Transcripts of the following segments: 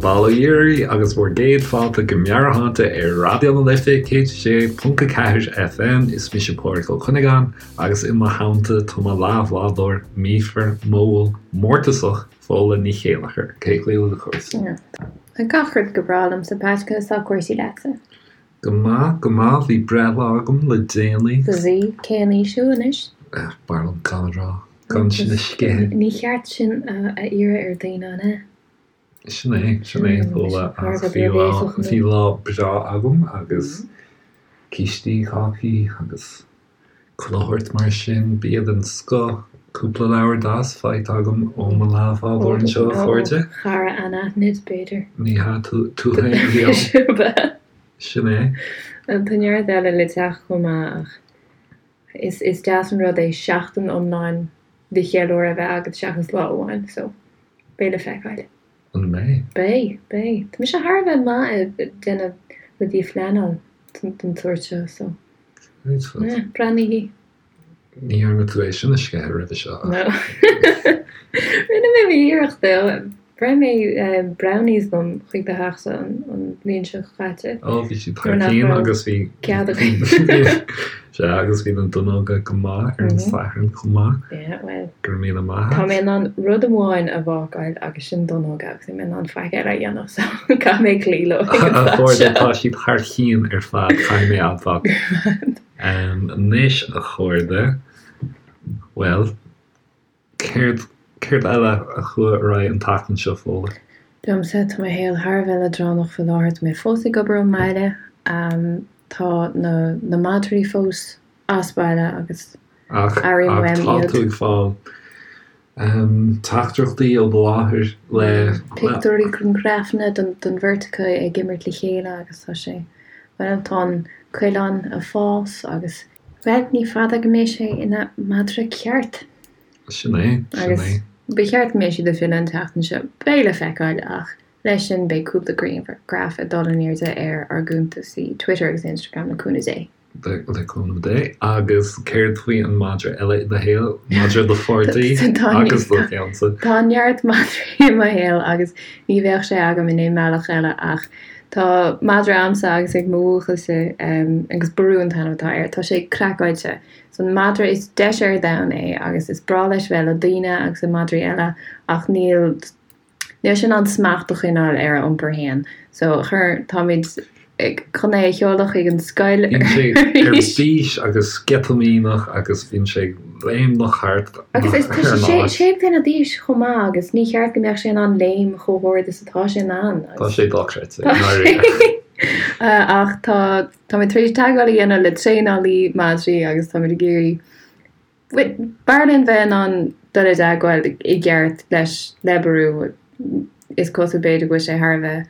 Bail ó Dhia oraibh agus bhur gcéad fáilte go Meabhairshláinte ar Raidió na Life 106.4 FM. Is mise Pádraig Ó Cuinneagáin agus i mo theannta tá mo leathbhádóir míofar, modhúil, mórtasach, Fódhla Ní Chéilleachair. Cén chaoi a bhfuil cúrsaí? Tá gach rud go breá liomsa, Pat, conas tá cúrsaí leatsa? Go maith, go maith, bhí breithlá agam le déanaí. Bhí? Cén aois thú anois? B'fhearr liom gan a rá, gan sin a sceitheadh. Ní cheart sin a iarraidh ar daoine, an ea? Sin é, sin é, Fódhla, ach bhí lá, bhí lá breá agam agus cístí, cácaí agus Chuile shórt mar sin, bia den scoth, cúpla leabhar deas faighte agam ó mo leathbhádóir anseo, a chairde. Ó chara anaithnid, b'fhéidir. Ní hea, tú féin a bhí ann. Sin é. Tá neart eile le teacht chomh maith ach is deas an rud é seachtain iomlán de cheiliúradh a bheith agat seachas lá amháin, so beidh le feiceáil. An mbeidh? Beidh, beidh. Tá mise thar a bheith maith ag déanamh rudaí a phleanáil den tsórt seo, so. Yeah, breathnaígí. Ní dhearna tú é sin a sceitheadh roimhe seo ach. No. Rinne mé m'iarracht though. Bhreith mé brownies liom chuig do theachsa an bhliain seo caite. Ó, bhí siad thar cionn agus bhí. Cead againn. Sea, agus bhí na donnóga go maith ar an Satharn chomh maith. Yeah, well. Go raibh míle maith agat. Tá mé in ann rud amháin a bhácáil agus sin donnóga agus níl mé in ann faic eile a dhéanamh so caithfidh mé cloí leo ag an A chairde, tá siad thar cionn ar fad, caithfidh mé a admháil. Anois, a chairde, bhuel, céard, céard eile a chuaigh ar aghaidh an tseachtain seo, Fódhla? Liomsa, tá mo shaol thar a bheith leadránach faoi láthair, tá mé fós ag obair ón mbaile, tá na, na madraí fós as baile agus Ach, airím ach uaim tá iad. tú ag fáil teachtaireachtaí ó do mháthair le, le. Pictiúirí grianghrafanna den, den bheirt acu ag imirt le chéile agus tá sé, bhuel, tá an coileán ag fás agus. Bhuel, ní fada go mbeidh sé ina mhadra ceart. Sin é, sin Agus é. ba cheart go mbeidh siad ag filleadh an tseachtain seo. Beidh le feiceáil ach leis sin beidh cúpla grianghraf ag dul in airde ar ár gcuntasaí Twitter agus Instagram le cúnamh Dé. Le cúnamh Dé. Agus céard faoi an madra eile i do shaol? Madra do pháirtí agus do cheannsa. Tá neart madraí i mo shaol agus ní bheadh sé agam in aon mbealach eile ach tá madra a'msa agus ag mo bhuachaillse agus Ború an t-ainm atá air. Tá sé craiceáilte. Is an madra is deise ar domhan é agus is breá leis bheith le daoine agus le madraí eile ach níl Níl sé in ann smacht a choinneáil ar a iompar féin. So, chuir, táimid chun é a sheoladh chuig an scoil Bíonn sé ar bís agus sceitimíneach agus bíonn sé ag léimneach thart Agus is, tá sé sé, sé bliana d'aois chomh maith agus ní cheart go mbeadh sé in ann léim chomh hard is atá sé in ann. Tá sé dochreidte, i ndáiríre. Ach tá, táimid tar éis teagmháil a dhéanamh le traenálaí madraí agus táimid ag iarraidh B'fhearr linn bheith in ann dul i dteagmháil i gceart leis, le Ború. Is cosúil b'fhéidir go bhfuil sé thar a bheith,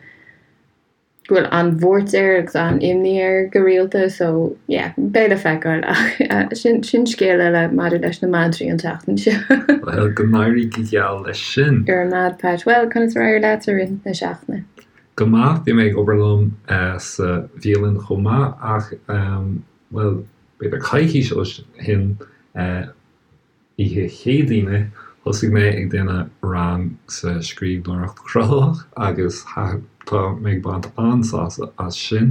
go bhfuil an-bhuairt air agus an-imní air go rialta so yeah, beidh le feiceáil ach sin, sin scéal eile maidir leis na madraí an tseachtain seo. Bhuel, go n-éirí go geal leis sin. Go raibh maith agat Pat. Bhuel, conas ar éirigh leat i rith na seachtaine? Go maith, bhí mé ag obair liom sa bhialann chomh maith ach, bhuel, b'fhéidir coicís ó shin, oíche Chéadaoine, thosaigh mé ag déanamh rang sa scríbhneoireacht chruthaitheach agus tá mé ag baint an-sásamh as sin,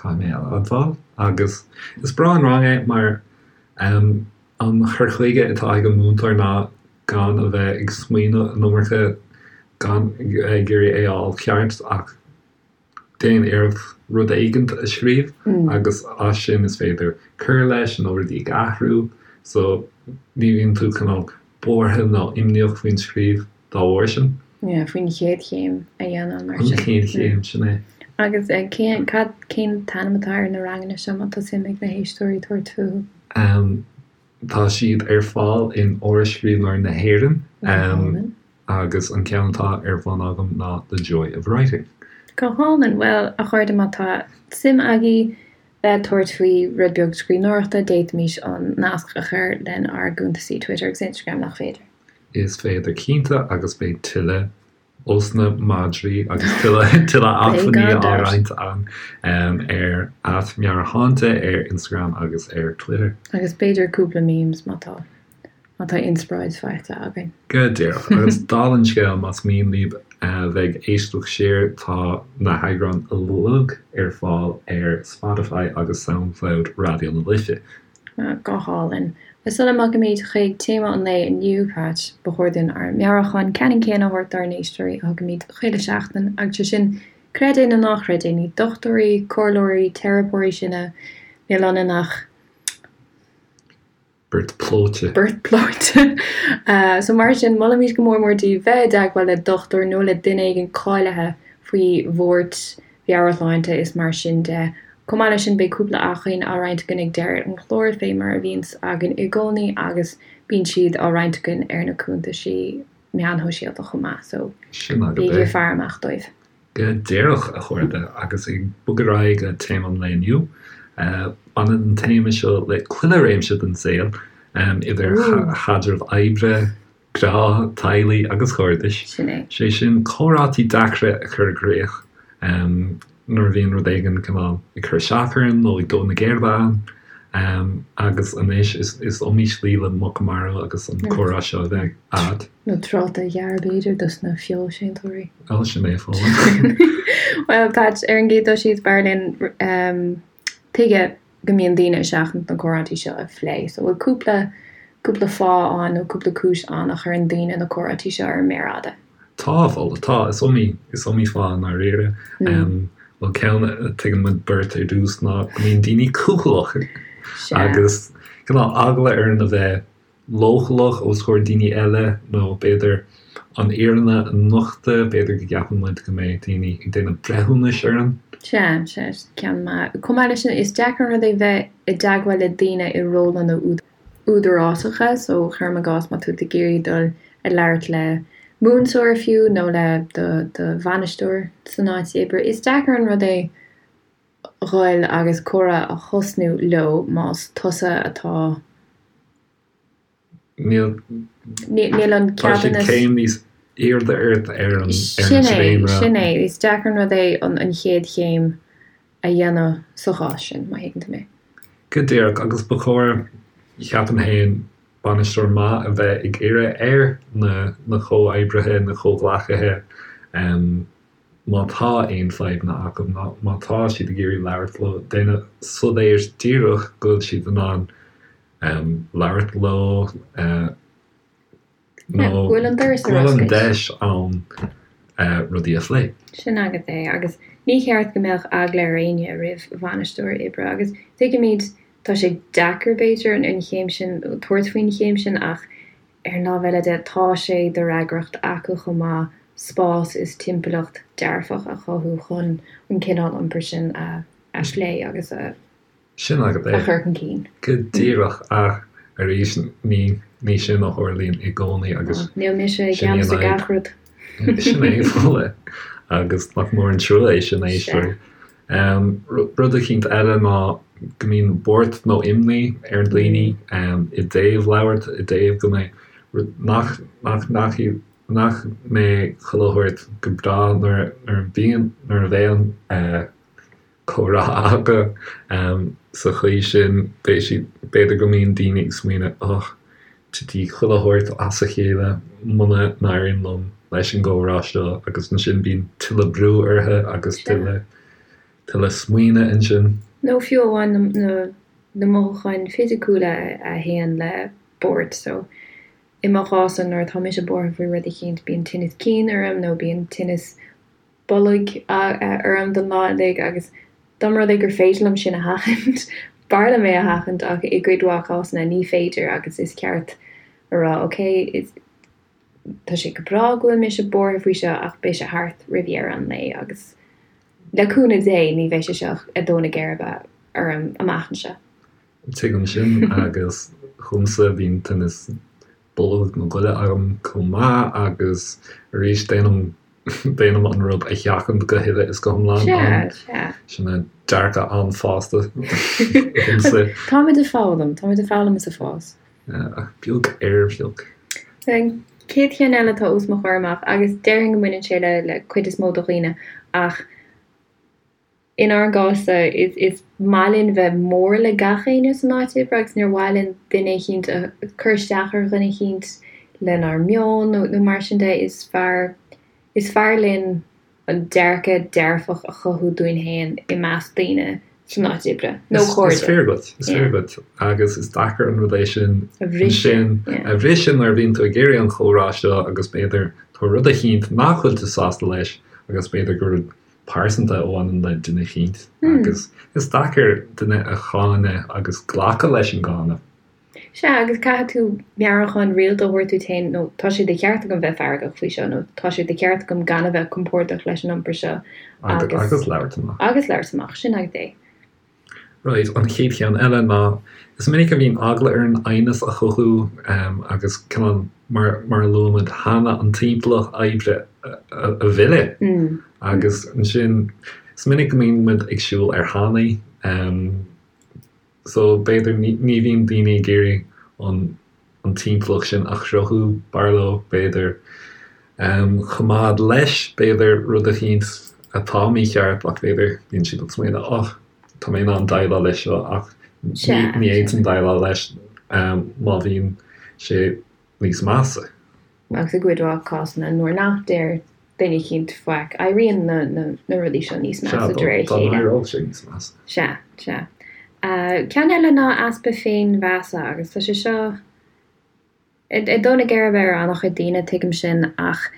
caithfidh mé a admháil. Agus is breá an rang é mar an cur chuige atá ag an múinteoir ná gan a bheith ag smaoineamh an iomarca, gan ag iarraidh é a fháil ceart ach déan iarracht rud éigint a scríobh agus as sin is féidir cur leis nó rudaí a athrú so ní bhíonn tú cineál buartha nó imníoch faoin scríobh dá bharr sin. Yeah, faoin chéad chéim a dhéanamh mar sin. An chéad chéim, sin é. Agus cén, cad, cén t-ainm atá ar na ranganna seo má tá suim ag na héisteoirí tabhairt fúthu? Um, tá siad ar fáil in Áras Scríbhneoirí na hÉireann. Um, Agus an ceann atá ar bun agam ná The Joy of Writing. Go hálainn. Bhuel, a chairde, má tá suim agaibh bheith ag tabhairt faoi rud beag scríbhneoireachta, d'fhéadfaimis an nasc a chur lenár gcuntasaí Twitter agus Instagram, nach féidir? Is féidir cinnte, agus beidh tuilleadh ós na madraí agus tuilleadh tuilleadh acmhainní á roinnt ann ar @meabhairshláinte ar Instagram agus ar Twitter. Agus b'fhéidir cúpla memes má tá. Má tá inspioráid faighte againn. Go díreach. Agus dála an scéil, más mian libh bheith ag éisteacht siar, tá na heagráin uilig ar fáil ar Spotify agus Soundcloud Raidió na Life. Go hálainn. Agus sula mbogaimid chuig téama an lae inniu, Pat, ba chóir dúinn ár meabhrúchán ceannann céanna a thabhairt dár n-éisteoirí a thugaimid chuile sheachtain, agus sé sin, creid é nó ná chreid é, ní dochtúirí, comhairleoirí, teiripeoirí sinne, níl ionainn ach. Beirt pleoite. Beirt pleoite. So mar sin, molaimid go mór mór daoibh bheith i dteagmháil le dochtúir nó le duine éigin cáilithe faoi bhuairt mheabhairshláinte is mar sin de. Chomh maith leis sin, beidh cúpla acmhainn á roinnt againn ag deireadh an chláir, fé mar a bhíonns againn i gcónaí, agus bíonn siad á roinnt againn ar na cuntaisí meáin shóisialta chomh maith, so Sin agat bígí é. ag faire amach dóibh. Go díreach, a chairde, agus ag bogadh ar aghaidh go téama an lae inniu. Baineann an téama seo le chuile réimse den saol, idir chaidrimh oibre, grá, teaghlaigh agus chairdis. Sin é. Sé sin, comhráití deacra a chur i gcrích nuair a bhíonn rud éigin cineál ag cur isteach orainn nó ag dó na geirbe againn. Agus anois, is iomaí slí le muc a mharú agus an comhrá seo a bheith a'd. Nó tráta a ghearradh b'fhéidir dos na feoilséantóirí. Ó, sin é, Fódhla. Bhuel, Pat, ar an gcéad dul síos, b'fhearr linn tuige go mbíonn daoine ag seachaint na comhráití seo a phlé. So bhfuil cúpla, cúpla fáth ann nó cúpla cúis ann a chuireann daoine na comhráití seo ar an méar fhada? Tá, a Fhódhla, tá. Is iomaí, is iomaí fáth i ndáiríre. Bhuel, ceann a tuigeann muid beirt ar dtús ná go mbíonn daoine cúthaileach agus cineál eagla orainn a bheith leochaileach os comhair daoine eile nó b'fhéidir an fhírinne a nochtadh, b'fhéidir go gceapann muid go mbeidh daoine ag déanamh breithiúnais orainn. Sea, sea, ceann maith. Chomh maith leis sin, is deacair an rud é bheith i dteagmháil le daoine i rólanna údarásacha, so cuirim i gcás má tá tú ag iarraidh dul ag labhairt le múinteoir fiú nó le do do bhainisteoir san áit oibre, is deacair an rud é dhul agus comhrá a thosnú leo más tusa atá Níl Níl an Tá siad ceadúnas. céim níos airde ort ar an ar an Sin é, dréimire. sin é. Is deacair an rud é an an chéad chéim a dhéanamh sa chás sin, má thuigeann tú mé. Go díreach, agus ba chóir, cheapaim féin, bainisteoir maith a bheith ag iarraidh ar na na comhoibrithe, na comhghleacaithe, má tá aon fadhbanna acu, nó má tá siad ag iarraidh labhairt leo, déanamh soiléir díreach go bhfuil siad in ann labhairt leo nó go bhfuil an doras go ar bhfuil an oscailt. deis ann rudaí a phlé. Sin agat é, agus ní cheart go mbeadh eagla ar éinne roimh bhainisteoir oibre, agus tuigimid, tá sé deacair, b'fhéidir, an chéim sin, tabhairt faoin chéim sin, ach ar an lámh eile de, tá sé de fhreagracht acu chomh maith spás is timpeallacht dearfach a chothú chun an cineál iompair sin a phlé agus a Sin agat a é. chur chun cinn. Go díreach, ach arís, ní ní sin a tharlaíonn i gcónaí agus Níl mise i sin í an gceannas ar fhadhb. gach rud. Sin é, Fódhla. Agus nach mór an trua é sin, a éisteoirí. Rud eicínt eile ná go mbíonn buairt nó imní ar dhaoine i dtaobh labhairt, i dtaobh go mbeidh rud nach nach nach nach mbeidh chuile shórt go breá nuair nuair a bhíonn nuair a bheidh an comhrá acu. Sa chaoi sin, beidh siad, b'fhéidir go mbíonn daoine ag smaoineamh, och, titfidh chuile shórt as a chéile muna n-éiríonn liom leis an gcomhrá seo agus ansin bíonn tuilleadh brú orthu agus tuilleadh, tuilleadh smaoineamh ansin. Nó fiú amháin na, na mothúcháin fisiciúla a théann le buairt. So, i mo chás-sa, nuair atá mise buartha faoi rud eicínt, bíonn tinneas cinn orm nó bíonn tinneas bolg orm don lá uilig agus dá mba rud é gur féidir liom sin a sheachaint, b'fhearr liom é a sheachaint ach i gcuid mhaith cásanna ní féidir agus is ceart a rá ok, tá sé go breá go bhfuil mise buartha faoi seo ach beidh sé thart roimh dheireadh an lae agus le cúnamh Dé ní bheidh sé seo ag dó na geirbe orm amach anseo. Tuigim sin agus dhomsa bíonn tinneas bolg nó goile agam chomh maith agus arís déanaim déanaim an rud a sheachaint go huile is go hiomlán. Sea, sea. Sin é dearcadh an-fhásta dhomsa. Táimid ag foghlaim, táimid ag foghlaim is ag fás. Ach beag ar bheag. An chéad cheann eile atá os mo chomhair amach agus déarfainn go mbaineann sé le le cuid is mó de dhaoine ach. Inár gcás-sa, is maith linn bheith mór le gach éinne san áit oibre agus níor mhaith linn duine eicínt a cur isteach ar dhuine eicínt lenár meon nó mar sin de. Is fearr, is fearr linn an dearcadh dearfach a chothú dúinn féin i measc daoine san áit oibre nó cairde. Is fíor duit, is fíor duit agus is deacair an rud é sin a bhriseadh, a bhriseadh nuair a bhíonn tú ag iarraidh an chomhrá seo agus b'fhéidir tá rud eicínt nach bhfuil tú sásta leis agus b'fhéidir gur rud pearsanta a bhaineann le duine eicínt agus is deacair duine a cháineadh agus glacadh leis an gcáineadh. Sea, agus caithfidh tú meabhrúchán rialta a thabhairt duit féin nó tá sé de cheart agam bheith feargach faoi seo nó tá sé de cheart agam gan a bheith compordach leis an iompar seo agus. Agus labhairt amach. Agus labhairt amach, sin agat é. Right, an chéad cheann eile ná, is minic a bhíonn eagla orainn aighneas a chothú agus cineál mar mar a luaigh muid cheana an timpeallacht oibre a mhilleadh agus ansin is minic go mbíonn muid ag siúl ar thanaí so b'fhéidir ní bhíonn daoine ag iarraidh an an timpeallacht sin a chruthú, b'fhearr leo, b'fhéidir, coimeád leis, b'fhéidir, rud eicínt atá mícheart ach b'fhéidir, bíonn siad ag smaoineamh, oh, tá mé in ann déileáil leis seo ach ní fhéadfainn déileáil leis má bhíonn sé níos measa. Agus i gcuid mhaith cásanna nuair nach deir duine eicínt faic, éiríonn na rudaí seo níos measa de réir a chéile. Sea, dá n-éireodh sé níos measa. Sea, sea. Ceann eile ná easpa féinmheasa agus tá sé seo ag dó na geirbe ar an-chuid daoine, tuigim sin, ach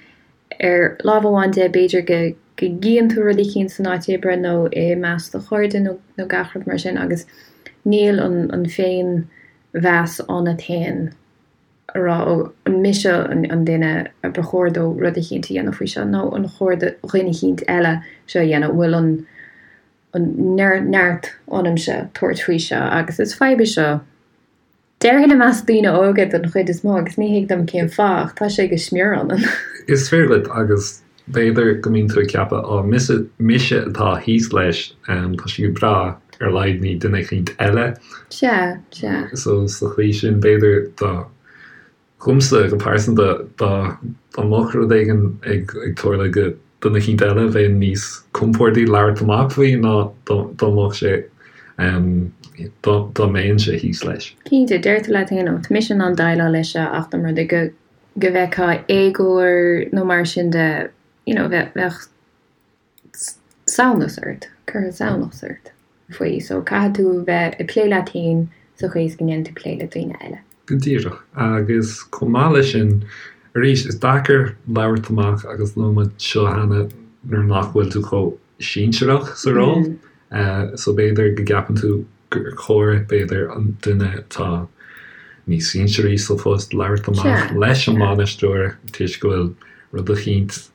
ar lámh amháin de, b'fhéidir go gcíonn tú rud eicínt san áit oibre nó i measc do chairde nó gach rud mar sin agus níl an féinmheas ionat féin. a rá, ó, an mise an duine a ba chóir dó rud eicínt a dhéanamh faoi seo, nó an chóir do dhuine eicínt eile seo a dhéanamh, an bhfuil an an neart ionamsa tabhairt faoi seo, agus is fadhb é seo, déarfainn i measc daoine óga den chuid is mó, agus ní thig liom cén fáth, ach tá sé go smior ionainn. Is fíor duit, agus b'fhéidir go mbíonn tú ag ceapadh, á, mise, mise atá thíos leis, tá sé go breá, ar a laghad ní duine eicínt eile. Sea, sea. So, sa chaoi sin, b'fhéidir dá, dhomsa go pearsanta, dá, dá mbeadh rud éigin ag, ag tarlú go duine eicínt eile, bheinn níos compórdaí labhairt amach faoi ná dá, dá mbeadh sé, dá, dá mbeinnse thíos leis. Cinnte, deir tú leat féin, ó, tá mise in ann déileáil leis seo ach dá mba rud é go, go bhfeicfeá éagóir nó mar sin de, you know, bheadh, bheadh samhnas ort, cuirfeadh samhnas ort faoi. So caithfidh tú bheith ag plé leat féin sa chaoi is go ndéanann tú plé le daoine eile. Go díreach. Agus chomh maith leis sin, arís, is deacair labhairt amach agus luaigh muid seo cheana nuair nach bhfuil tú chomh sinsearach sa ról. So b'fhéidir go gceapann tú gur chóir, b'fhéidir, an duine atá níos sinsearaí sa phost labhairt amach leis an mbainisteoir toisc go bhfuil rud eicínt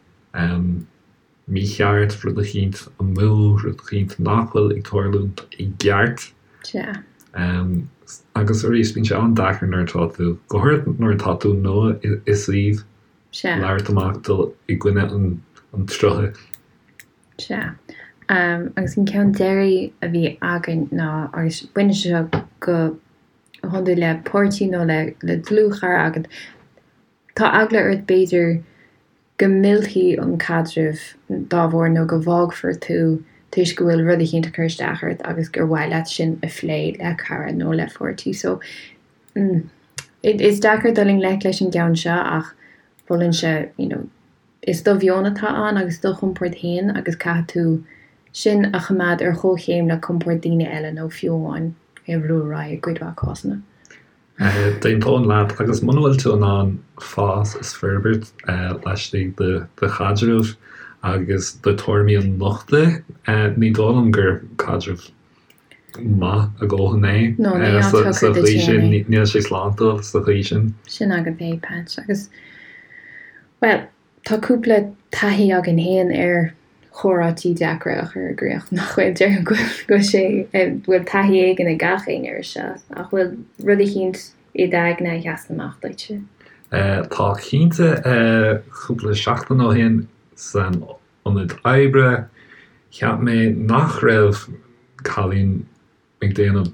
mícheart, rud eicínt amú, rud eicínt nach bhfuil ag tarlúint i gceart. Agus arís, bíonn sé an-deacair nuair atá tú, go háirithe nuair atá tú nua i suíomh, labhairt amach, dul i gcoinne an tsrutha. Sea. Agus an ceann deiridh a bhí againn ná, agus baineann sé seo go hiondúil le páirtí nó le dlúthchara agat, tá eagla ort b'fhéidir go millfidh an caidreamh dá bharr nó go bhfágfar tú toisc go bhfuil rud eicínt ag cur isteach ort agus gur mhaith leat sin a phlé le cara nó le pháirtí. So, is deacair dul i ngleic leis an gceann seo ach mholfainnse, you know, Is do mheon atá ann agus do chompord féin agus caithfidh tú sin a choimeád ar chomhchéim le compord daoine eile nó fiú amháin é a bhrú ar aghaidh i gcuid mhaith cásanna. D'aontóinn leat agus muna bhfuil tú in ann fás is forbairt laistigh de do chaidreamh agus do tuairimí a nochtadh, ní dóigh liom gur caidreamh maith a dhóthain é No, ní áit sa shocair duit chaoi féin sin, é. níl sé sláintiúil sa chaoi sin. Sin agat é, Patch. Agus, bhuel, tá cúpla taithí againn féin ar chomhráití deacra a chur i gcrích, nach bhfuil? Déarfainn go bhfuil sé, bhfuil taithí éigin ag gach éinne air seo. Ach bhfuil rud eicínt i d'aigne a sheasann amach duitse? Tá cinnte. Cúpla seachtain ó shin san ionad oibre, cheap mé nach raibh cailín ag déanamh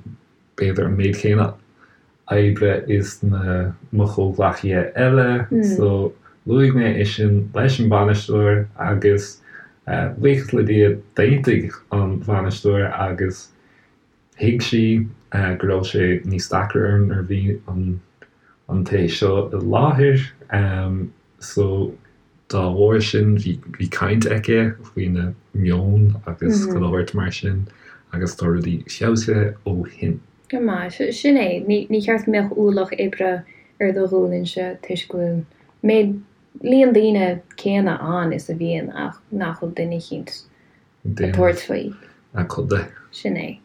b'fhéidir an méid céanna oibre is na mo chomhghleacaithe eile so luaigh mé é sin leis an bainisteoir agus. Buíochas le Dia, d'aontaigh an bhainisteoir agus thuig sí go raibh sé níos deacra orm nuair a bhí an té seo i láthair. So dá bharr sin bhí caint aici faoina meon agus chuile shórt mar sin agus tá rudaí feabhsaithe ó shin. Go maith. Sin é. Ní cheart go mbeadh ualach oibre ar do ghualainn-se toisc go bhfuil méid, líon daoine céanna ann is a bhíonn ach nach bhfuil duine eicínt ag tabhairt faoi. A cuid de. Sin é.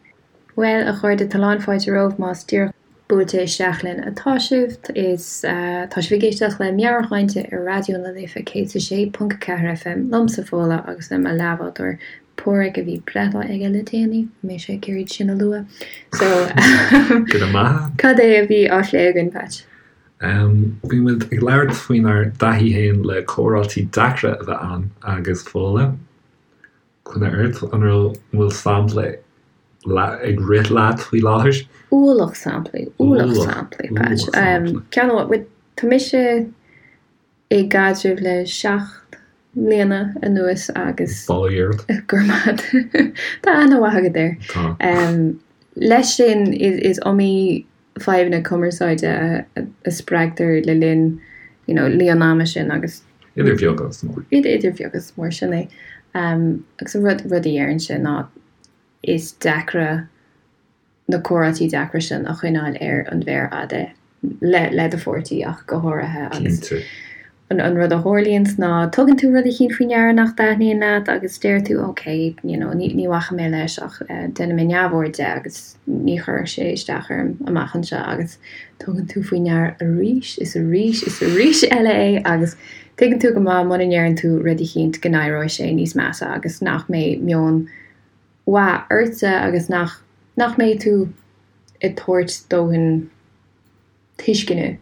Bhuel, a chairde, tá lán fáilte romhaibh más díreach buailte isteach linn atá sibh. Is tá sibh ag éisteacht le Meabhairshláinte ar Raidió na Life 106.4 FM, liomsa Fódhla agus le mo leathbhádóir Páraic a bhí breithlá aige le déanaí, bhí mise ag iarraidh sin a lua. So, Go raibh maith agat. Cad é a bhí á phlé againn, Patch? Bhí muid ag labhairt faoinár dtaithí féin le comhráití deacra a bheith ann agus Fódhla, coinne ort, an raibh, an bhfuil sampla ag rith leat faoi láthair? Ualach samplaí, ualach samplaí, Patch. Ceann amháin, tá mise i gcaidreamh le 7 mbliana anuas agus. Bail ó Dhia ort. Go raibh maith agat. Tá aithne mhaith agat air. Tá. Leis sin, is iomaí fadhbanna cumarsáide a spreagtar le linn you know líon ama sin agus. Idir bheag agus mhór. Idir bheag agus mhór, sin é. Agus an rud, rud a deirimse ná is deacra na comhráití deacra sin a choinneáil ar an mhéar fhada le le do pháirtí ach go háirithe agus Cinnte. an an rud a tharlaíonns ná tugann tú rud eicínt faoi ndeara nach dtaitníonn leat agus deir tú ok you know ní ní bhacfaidh mé leis ach déanfaidh mé neamhaird de agus ní chuirfidh sé isteach orm amach anseo agus tugann tú faoi ndeara arís is arís is arís eile é agus tuigeann tú go maith muna ndeireann tú rud eicínt go n-éireoidh sé níos measa agus nach mbeidh meon mhaith ortsa agus nach nach mbeidh tú ag tabhairt dóthain tuisceana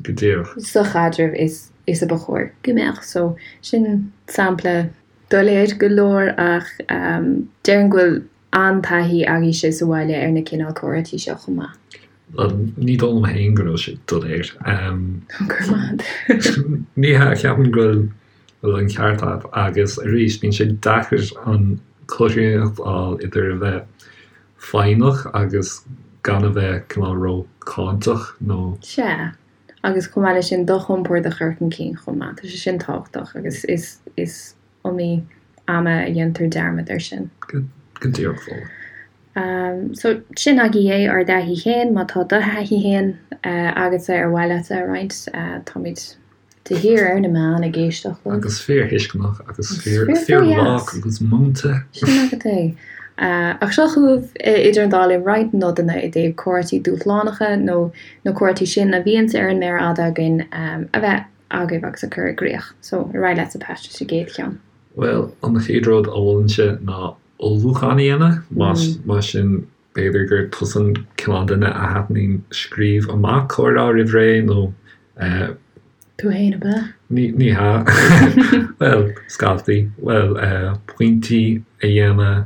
Go díreach. sa chaidreamh is is a ba chóir go mbeadh. So, sin sampla doiléir go leor ach déarfainn go bhfuil an-taithí agaibhse sa bhaile ar na cineál comhráití seo chomh maith. Bhuel, ní dóigh liom féin go raibh sé doiléir. Go raibh maith agat. Ní hea, ceapaim go bhfuil bhfuil an ceart agat agus arís bíonn sé deacair an chothromaíocht a fháil idir a bheith foighneach agus gan a bheith cineál ró-cháinteach nó. Sea, agus chomh maith leis sin do chompord a chur chun cinn chomh maith, tá sé sin tábhachtach agus is is iomaí ama a dhéantar dearmad air sin. Go díreach Fódhla. So, sin agaibh é, ár dtaithí féin, má tá do thaithí féin agatsa ar mhaith leat a roinnt, táimid De shíor ar na meáin ag éisteacht libh. Agus fíorthuisceanach agus fíor-lách agus múinte. Sin agat é. Ach seo chugaibh idir an dá linn roinnt nodanna i dtaobh comhráití dúshlánacha nó na comhráití sin a bhíonns ar an méar fhada againn a bheith agaibh agus a chur i gcrích. So, ar aghaidh leatsa Pat leis an gcéad cheann. Bhuel, an chéad rud a mholfainnse ná ullmhúchán a dhéanamh, más sin B'fhéidir gur tusa an cineál duine a thaitníonn scríobh amach comhrá roimh ré nó. Tú fhéin, ab ea? Ní hea. Bhuel, scaití. Bhuel, pointí a dhéanamh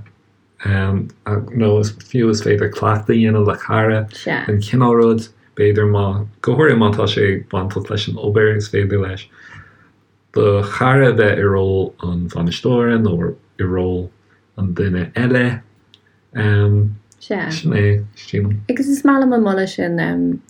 nó is fiú is féidir cleachtadh a dhéanamh le cara den chineál rud. B'fhéidir má, go háirithe má tá sé bainteach leis an obair, is féidir leis do chara a bheith i ról an bhainisteora nó i ról an duine eile. Sea. Sin é, sílim. Agus is maith liom an moladh sin.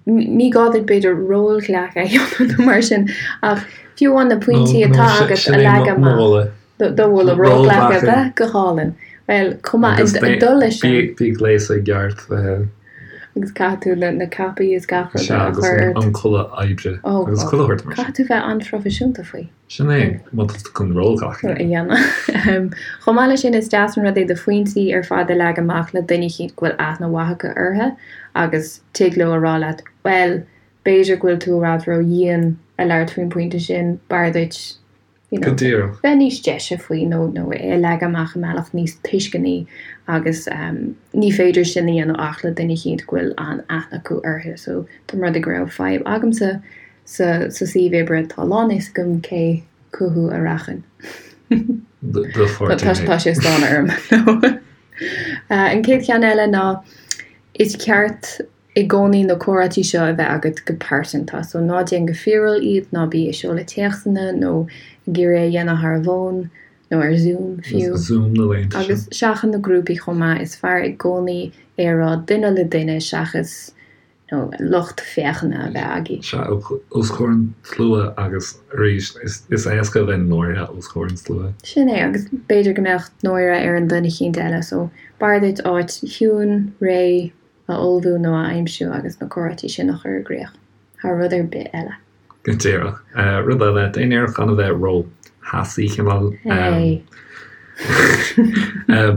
Ní gá duit, b'fhéidir, rólghlacadh a dhéanamh nó mar sin, ach fiú amháin na pointí atá agat a leagan amach. Do mholadh rólghlacadh a bheith go hálainn. Bhuel, chomh maith, ag dul leis sin. Bí gléasta i gceart. Agus caithfidh tú na capaí is gach rud a chur ort. Sea, agus an culaith oibre agus chuile shórt mar sin. Caithfidh tú bheith an-phroifisiúnta faoi. Sin é, má tá tú chun rólghlacadh a dhéanamh. Chomh maith leis sin, is deas an rud é do phointí ar fad a leagan amach le duine eicínt go bhfuil aithne mhaith acu orthu agus tig leo a rá leat, bhuel, b'fhéidir go bhfuil tú i bhfad ró-dhian a labhairt faoin bpointe sin, b'fhearr duit, you know, Go díreach. bheith níos deise faoi nó nó é a leagan amach i mbealach níos tuisceanaí agus ní féidir sin a dhéanamh ach le duine eicínt go bhfuil an-aithne acu orthu. So, dá mba rud é go raibh fadhb agamsa Sa suíomh oibre tá a lán fhios agam cé chucu a rachainn. Do pháirtí. Tá sé ag stánadh orm. An chéad cheann eile ná is ceart i gcónaí na comhráití seo a bheith agat go pearsanta. So ná déan go fíorúil iad, ná bí ag seoladh téacsanna nó ag iarraidh é a dhéanamh thar an bhfón. Nó ar Zoom fiú. Zoom na laethanta seo. Agus seachain na grúpaí chomh maith, is fearr i gcónaí é a rá duine le duine seachas you know lucht féachana a bheith agaibh. Sea, os comhair an tslua agus arís is éasca a bheith náirithe os comhair an tslua. Sin é, agus b'fhéidir go mbeadh náire ar an duine eicínt eile so b'fhearr duit áit chiúin, réidh a ullmhú nó a aimsiú agus na comhráití sin a chur i gcrích thar rud ar bith eile. Go díreach. Rud eile, déan iarracht gan a bheith ró-theasaí, cineál. Hey.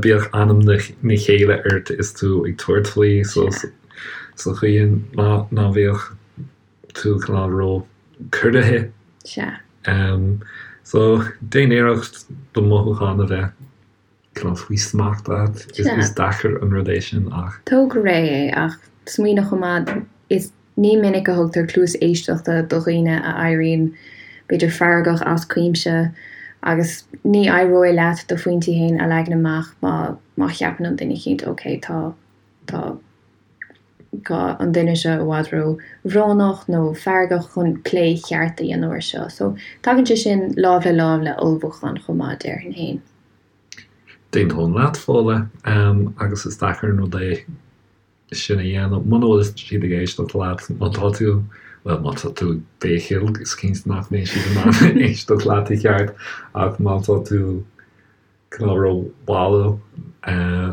Bíodh anam na céille ort is tú ag tabhairt faoi, so sa chaoi ná ná bíodh tú cineál ró-chorraithe. Sea. So, déan iarracht do mhothúcháin a bheith cineál faoi smacht agat. Is deacair an rud é sin ach. Tóg go réidh é ach smaoinigh chomh maith, is ní minic a thugtar cluas éisteachta do dhaoine a éiríonn b'fhéidir feargach as cuimse agus ní éireoidh leat do phointí féin a leagan amach má má cheapann an duine eicínt ok tá tá tá an duine seo i bhfad ró bhrónach nó feargach chun plé cheart a dhéanamh ar seo. So tagann sé sin lámh le lámh le ullmhúchán chomh maith déarfainn féin. D'aontóinn leat, Fódhla, agus is deacair an rud é sin a dhéanamh muna bhfuil siad ag éisteacht leat, má tá tú, bhuel, má tá tú ag béicíl, is cinnte nach mbeidh siad in ann éisteacht leat i gceart, ach má tá tú cineál ró-bhalbh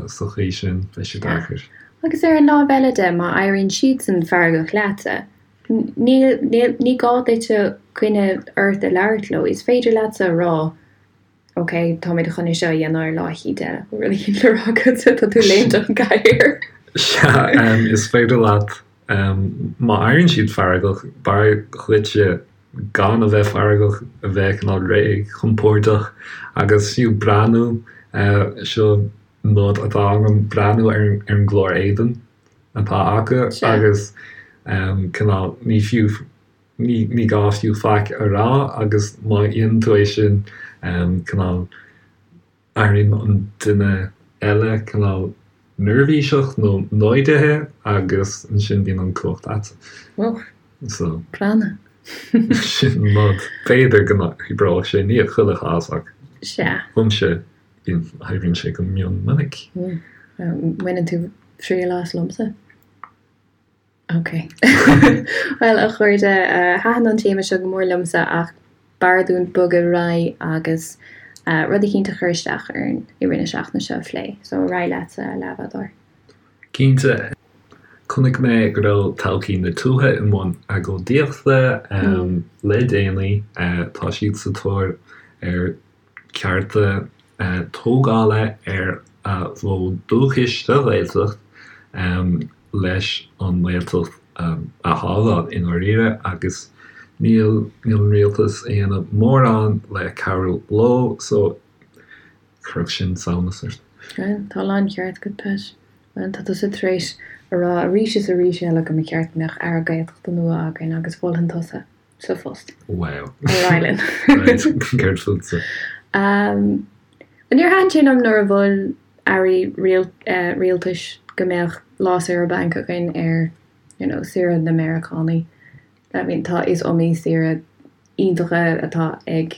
sa chaoi sin, beidh sé deacair. Agus ar an lámh eile de, má éiríonn siadsan feargach leatsa, níl, níl, ní gá duitse coinne ort a labhairt leo, is féidir leatsa a rá, Ok, táimid chun é seo a dhéanamh ar lá eicínt eile. Bhfuil rud eicínt le rá agatsa? Tá tú ag léimt ón gcathaoir. Sea, is féidir leat, má éiríonn siad feargach, b'fhearr dhuitse gan a bheith feargach, a bheith cineál réidh, compordach agus fiú breathnú, seo nod atá agam, breathnú ar an gclár éadain atá acu agus cineál, ní fiú Ní gá fiú faic a rá agus má dhéanann tú é sin, cineál, éiríonn an duine eile cineál neirbhíseach nó náirithe agus ansin bíonn an cumhacht agat. Ó, So. Prana. Sin nod. B'fhéidir go n-oibreoidh sé, ní i chuile chás ach Sea. domsa, bíonn, oibríonn sé go mion minic. Baineann tú triail as liomsa? Ok. Bhuel, a chairde, thaitin an téama seo go mór liomsa ach b'fhearr dúinn bogadh ar aghaidh agus rud eicínt a chuir isteach orainn i rith na seachtaine seo a phlé. So, ar aghaidh leatsa, a leathbhádóir. Cinnte. Chonaic mé go raibh Todhchaí na Tuaithe i mbun agóidíochta le déanaí. Tá siad sa tóir ar cearta tógála ar a bhfód dúchais sa Ghaeltacht leis an nGaeltacht a shábháil i ndáiríre agus níl níl an rialtas ag déanamh mórán le cabhrú leo so chuirfeadh sin samhnas ort. Bhuel, tá a láncheart agat, Pat. Bhuel, tá tusa tar éis a rá arís is arís eile go mba cheart go mbeadh Aire Gaeltachta nua againn agus mholfainn tusa. sa phost. Wow. Ar aghaidh linn. Right, céard fútsa? Um, níor thaitin sé liom nuair a mhol airí rialtais go mbeadh lá saoire bainc againn ar you know, saoire na Meiriceánaigh. I mean, tá is iomaí saoire iontacha atá ag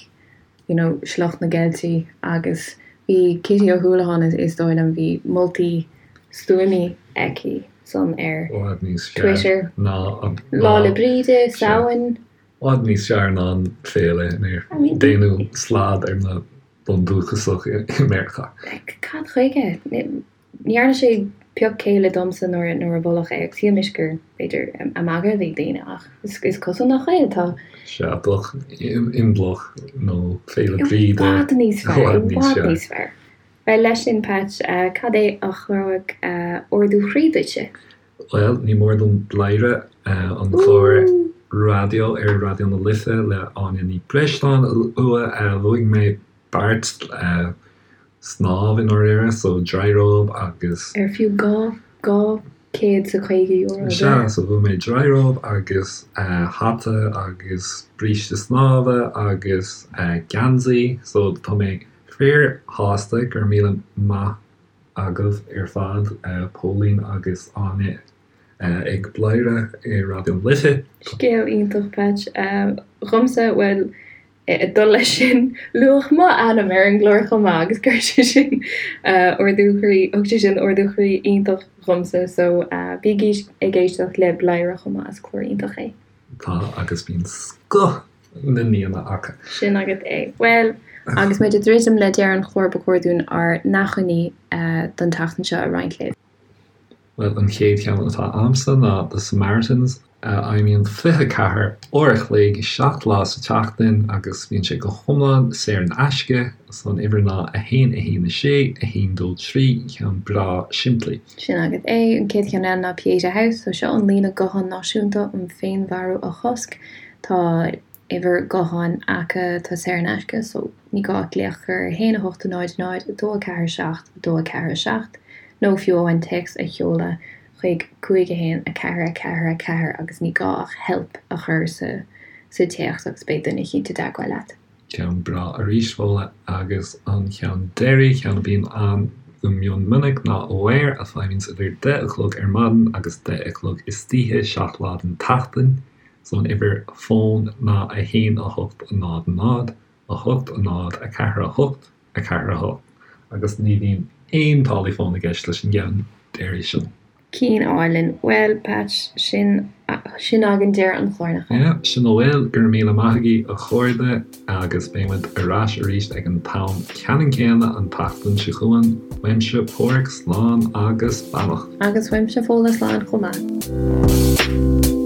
you know, sliocht na gCeiltigh agus bhí Kitty Ó hUallacháin is dóigh liom, bhí moltaí stuama aici san ar Twitter. Lá 'le Bríde, Samhain. I bhfad níos fearr ná an féile inar déanadh slad ar na bundúchasach i Meiriceá. Cad chuige? Ní dhearna sé pioc céille domsa nuair a moladh é agus shíl mise gur, b'fhéidir, ag magadh a bhí daoine ach is cosúil nach bhfuil. Tá. Sea, bheadh Imbolc nó Féile Bríde i bhfad níos fearr, i bhfad níos fearr. Bhuel, leis sin, Pat, cad é a chuirfeadh ardú chroí duitse? Bhuel, ní mór dom Bladhaire, an clár raidió ar Raidió na Life le Áine Ní Bhreisleáin a lua. Bhuaigh mé beart snámh i ndáiríre, so dryrobe agus. Ar fiú €250 é? Sea, so bhuaigh mé dryrobe agus hata agus bríste snámha agus geansaí, so tá mé fíor-shásta, go raibh míle maith agaibh ar fad, Póilín agus Áine ag Bladhaire ar Raidió na Life. Scéal iontach, Patch. Dhomsa, bhuel. Ag dul leis sin, luadh m'ainm ar an gclár chomh maith agus chuir sé sin ardú croí, thug sé sin ardú croí iontach dhomsa so bígí ag éisteacht le Bladhaire chomh maith, is clár iontach é. Tá, agus bíonn scoth na n-aíonna acu. Sin agat é. Bhuel, agus muid ag druidim le deireadh an chláir ba chóir dúinn ár n-achainí don tseachtain seo a roinnt libh. Bhuel, an chéad cheann atá a'msa ná The Samaritans, a fheidhmíonn 24 uair a chloig, 7 lá sa tseachtain agus bíonn sé go hiomlán saor in aisce. So an uimhir ná 1 1 6 1 2 3, ceann breá simplí. Sin agat é. An chéad cheann eile ná Pieta House. So seo an líne gutháin náisiúnta um féinmharú a chosc. Tá uimhir gutháin acu atá saor in aisce so ní gá ach glaoch a chur ar 1 8 0 0 2 4 7 2 4 7 nó fiú amháin téacs a sheoladh chuig 5 1 4 4 4 agus ní gá ach help a chur sa sa téacs agus beidh duine eicínt i dteagmháil leat. Ceann breá arís, Fódhla, agus an ceann deiridh, ceann a bhíonn ann go mion minic, ná Aware, a feidhmíonns idir deich a chlog ar maidin agus deich a chlog istoíche, 7 lá den tseachtain. So an uimhir fóin ná 1 8 0 0 8 0 4 8 4 8 agus ní bhíonn aon táillí fóin i gceist leis an gceann deiridh sin. Ceann álainn. Bhuel, Patch, sin, sin againn deireadh an chláir, nach ea? Yeah, sin a bhfuil. Go raibh míle maith agaibh, a chairde, agus beidh muid ar ais arís ag an t-am ceannann céanna an tseachtain seo chugainn. Uaimse, Páraic, slán agus beannacht. Agus uaimse, Fódhla, slán chomh maith.